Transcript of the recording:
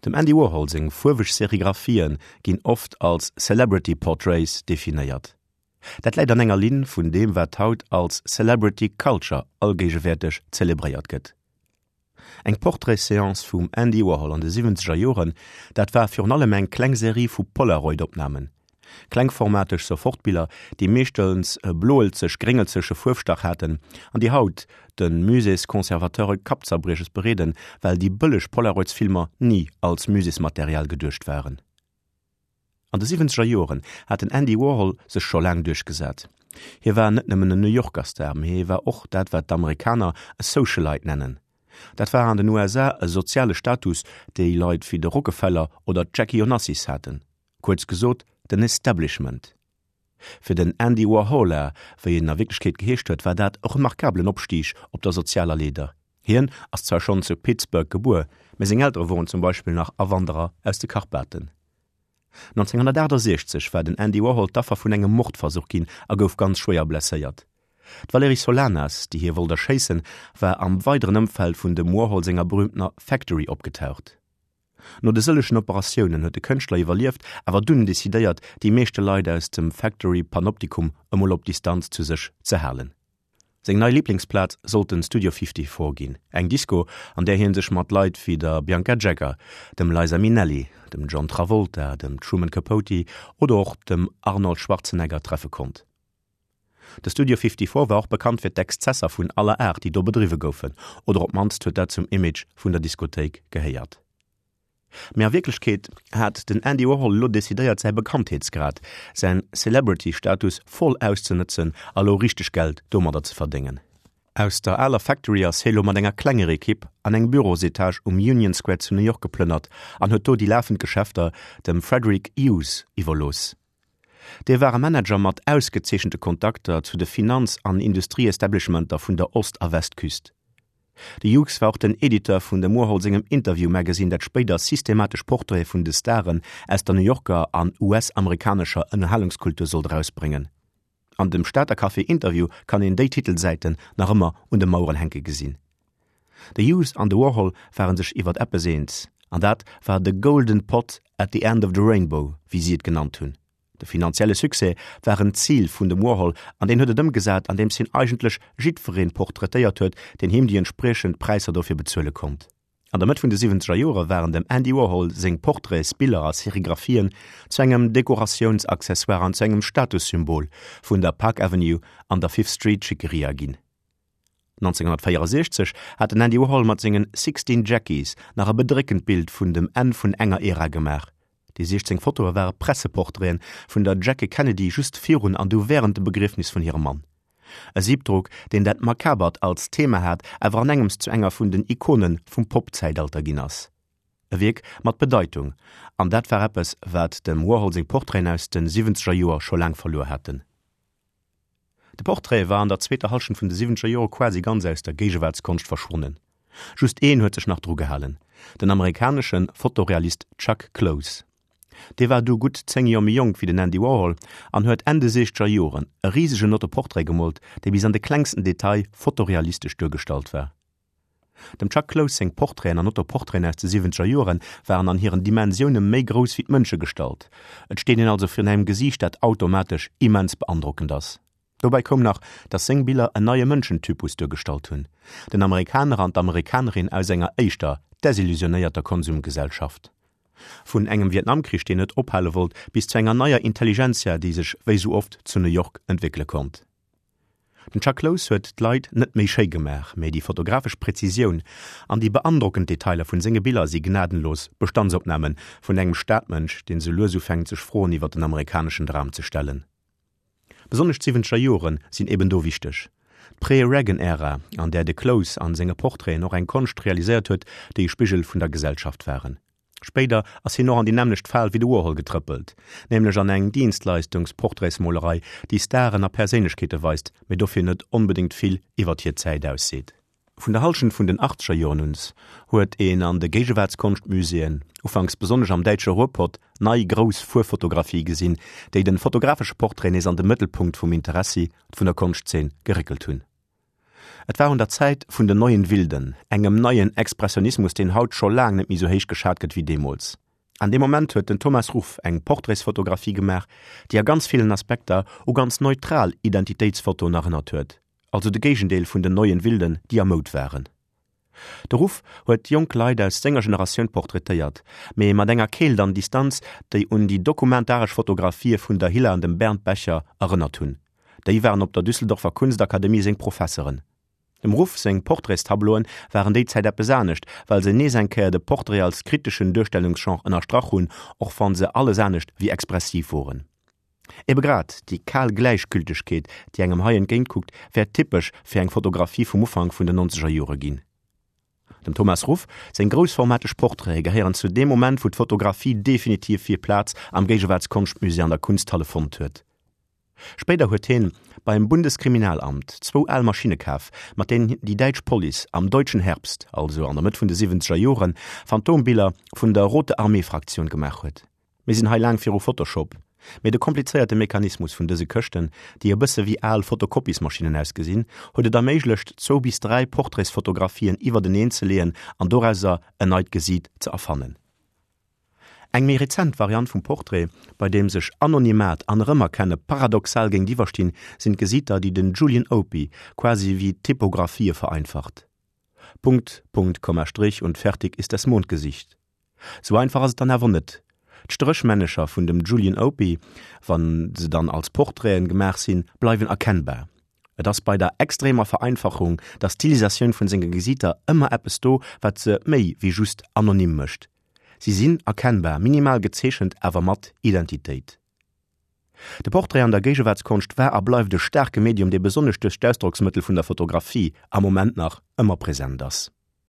Dem Andy Warhol seng fuerweg Serigraphien ginn oft als Celebrity Portraits definéiert. Dat läit an enger Linn vun deem wat haut als Celebrity Culture allgéigewäerteg zelebréiert gëtt. Eng Portraits-Seance vum Andy Warhol an de siwwenzeger Joren, dat war virun allem eng kleng Serie vu Polaroid-Opnamen. Klengformateg Sofortbiller, déi meeschtens e bloelzeg-gréngelzeche Fuerfstach haten an déi haut de Musées-Conservateure Kappzerbrieches bereeden, well déi bëlleg Polaroids-Filmer ni als Muséesmaterial geduecht waren. An de siwwenzeger Joren hat den Andy Warhol sech scho laang duerchgesat. Hie war net nëmmen en New Yorker Star, mee hie war och dat wat d'Amerikaner e Socialite nennen. Dat war an den USA e soziale Status, déi Leit wéi de Rockefeller oder d'Jackie Onassis haten. Kuerz gesot, den Establishment. Fir den Andy Warhola, wéi en a Wierklechkeet geheescht huet, war dat e remarkabelen Opstig op der sozialer Leeder. Hien ass zwar schonn zu Pittsburgh gebuer, mee seng Eltere woren zum Beispill nach Awanderer aus de Karpaten. 1968 war den Andy Warhol d'Affer vun engem Mordversuch ginn a gouf ganz schwéier blesséiert. D'Valerie Solanas, déi hie wollt erschéissen, war am weideren Ëmfeld vun dem Warhol senger berüümtener Factory opgetaucht. No de sëllegen Operatiounen huet de Kënschtler iwwerlieft, awer dunn decidéiert, déi meeschte Leit aus dem Factory Panoptikum emol op Distanz zu sech ze halen. Seng nei Liblingsplaz sollt den Studio 54 ginn, eng Disco, an där hie sech mat Leit wéi der Bianca Jagger, dem Liza Minnelli, dem John Travolta, dem Truman Capote oder och dem Arnold Schwarzenegger treffe konnt. De Studio 54 war och bekannt fir d'Exzesser vun aller Aart, déi do bedriwwe goufen, oder op d'mannst huet dat zum Image vun der Diskothéik gehéiert. Mee a Wierklechkeet hat den Andy Warhol elo decidéiert säi Bekanntheetsgrad, säin Celebrity-Status voll auszenëtzen a lo richteg Geld domadder ze verdéngen. Aus der aler Factory ass hie lo mat enger klenger Ekipp an eng Bürosetage um Union Square zu New York geplënnert an huet do déi lafend Geschäfter dem Frederick Hughes iwwerlooss. Dee war e Manager mat ausgezeechente Kontakter zu de Finanz an Industrieestablishmenter vun der Ost a Westküst. De Hughes war och den Editeur vun dem Warhol sengem Interview Magazine, dat spéider systematesch Portraite vun de Staren aus der New Yorker an US-amerikanescher Ënnerhalungskultur sollt erausbréngen. An dem Stater Café Interview kann een déi Titelsäiten nach ëmmer un de Maueren hänke gesinn. De Hughes an de Warhol ware sech iwwert eppes eens, an dat war de golden pot at the end of the rainbow, wéi si et genannt hunn. De finanzielle Succès war en Zil vun dem Warhol an deen huet et ëmgesat, andeems hien eigentlech jiddweree portraitéiert huet, deen him déi entspriechend Präisser dofir bezuele konnt. An der Mëtt vun de siwwenzeger Jore waren dem Andy Warhol seng Portraitsbiller a Serigraphien zu engem Dekoratiounsaccessoire an zu engem Statussymbol vun der Park Avenue an der Fifth Street Schickeria ginn. 1964 hat den Andy Warhol mat sengen Sixteen Jackies nach e bedréckend Bild vun dem Enn vun enger Ära gemaach. Déi 16 Fotoe ware Presseportraiten vun der Jackie Kennedy just virun an du wärend dem Begriefnis vun hirem Mann. E Siebdruck, deen dat Makabert als Thema hat, awer an engems zu enger vun den Ikone vum Pop-Zäitalter ginn ass. E Wierk mat Bedeitung, an dat war eppes, wat dem Warhol seng Portraiten aus de siwwenzeger Joer scho laang verluer haten. De Portrait war an der zweeter Hallschent vun de siwwenzeger Jore quasi ganz aus der Géigewaartskonscht verschwonnen. Just een huet sech nach dru gehalen, den amerikanesche Fotorealist Chuck Close. Dee war du gutt 10 Joer méi jonk wéi den Andy Warhol an huet Enn de siechzeger Joren e risegen Autoportrait gemoolt, dee bis an de klengsten Detail fotorealistesch duergestallt war. Dem Chuck Close seng Portraiten an Autoportraiten aus de siwwenzeger Joren waren an hiren Dimensioune méi grouss wéi d'Mënschegestalt. Et steet een also virun engem Gesiicht, dat automatesch immens beandrockend ass. Dobäi koum nach, datt seng Biller en neie Mënschentypus duergestallt hunn, den Amerikaner an d'Amerikanerin aus enger éischter desillusionéierter Konsumgesellschaft. Vun engem Vietnamkrich, deen net ophale wollt, bis zu enger neier Intelligentsia, déi sech wéi sou oft zu New York entwéckele konnt. Den Chuck Close huet d'Leit net méi schéi gemaach, mee déi fotografesch Präzisioun an déi beandrockend Detailer vun senge Biller si gnadenlos Bestandsopname vun engem Stadmënsch, deen sou lues ufänkt sech Froen iwwer den amerikaneschen Dram ze stellen. Besonnesch d'siwwenzeger Jore sinn eben do wichteg. D'Pré-Reagan-Ära, an där de Close an senge Portraiten och eng Konscht realiséiert huet, déi e Spigel vun der Gesellschaft waren. Spéider ass hien och an déi nämmlecht Fal wéi de Warhol getrëppelt, nämlech an eng Dienstleistungsportraitsmolerei, déi Staren a Perséinlechkeete weist, mee dofir net onbedéngt vill iwwert hir Zäit ausseet. Vun der Hallschent vun den achtzeger Joren uns huet een an de Géigewaartskonschtmuséeën, ufanks besonnesch am däitsche Ruhrpott, nei grouss Fuerwfotografie gesinn, déi de fotografesche Portrait nees an de Mëttelpunkt vum Interessi vun der Konschtzeen geréckelt hunn. Et war un der Zäit vun den Neuen Wilden, engem neien Expressionismus, deen haut scho laang net méi sou héich geschat gëtt wéi deemools. An deem Moment huet den Thomas Ruff eng Portraitsfotografie gemaach, déi a ganz villen Aspekter u ganz neutral Identitéitsfotoen erënnert huet, also de Géigendeel vun den Neuen Wilden, déi a Moud waren. De Ruff huet jonk Leit aus senger Generatioun portraitéiert, mee mat enger Keelt an Distanz, déi un déi dokumentaresch Fotografië vun der Hilla an dem Bernd Becher erënnert hunn. Déi waren op der Düsseldorfer Kunstakademie seng Professeren. Dem Ruff seng Portraitstableauen waren déi Zäit eppes anescht, well se nees eng Kéier de Portrait als kriteschen Duerstellungsgenre ënnerstrach hunn, och wann se alles anescht wéi expressiv woren. Ebe grad déi kal Gläichgültegkeet, déi engem hei entgéintkuckt, wäert typesch fir eng Fotografie vum Ufank vun den nonzeger Jore ginn. Dem Thomas Ruff seng groussformateg Portraite gehéieren zu deem Moment, wou d'Fotografie definitiv hir Plaz am Géigewaartskonschtmusée an der Kunsthalle fonnt huet. Spéider huet hien beim Bundeskriminalamt zwou al Maschinne kaf, mat deenen déi däitsch Police am Deutschen Herbst, also an der Mëtt vun de siwwenzeger Joren, Phantombiller vun der Rote Armee Fraktioun gemaach huet. Mir sinn hei laang viru Photoshop, mee de komplizéierte Mechanismus vun dëse Këschten, déi e bësse wéi al Fotokopiesmaschinnen ausgesinn, huet et erméiglecht, zwou bis 3 Portraitsfotografien iwwerteneen ze leeën an dorauser en neit Gesiit ze erfannen. Eng méi rezent Variant vum Portrait, bei deem sech Anonymat an Erëmerkenne paradoxal géintiwwer stinn, sinn d'Gesiiter, déi den Julian Opie quasi wéi Typografië vereinfacht. Punkt, Punkt, Komma, Strich und fertig ist das Mondgesicht. Sou einfach ass et dann awer net. D'Stréchmännecher vun dem Julian Opie, wa se dann als Portraiten gemaach sinn, bleiwen erkennbar. Et ass bei der extremer Vereinfachung, der Stilisatioun vun senge Gesiiter ëmmer eppes do, wat se méi wéi just anonym mécht. Si sinn erkennbar, minimal gezeechent, awer mat Identitéit. De Portrait an der Géigewaartskonscht war a bleift e staarke Medium, dee besonnesch duerch d'Ausdrocksmëttel vun der Fotografie am Moment nach ëmmer present ass.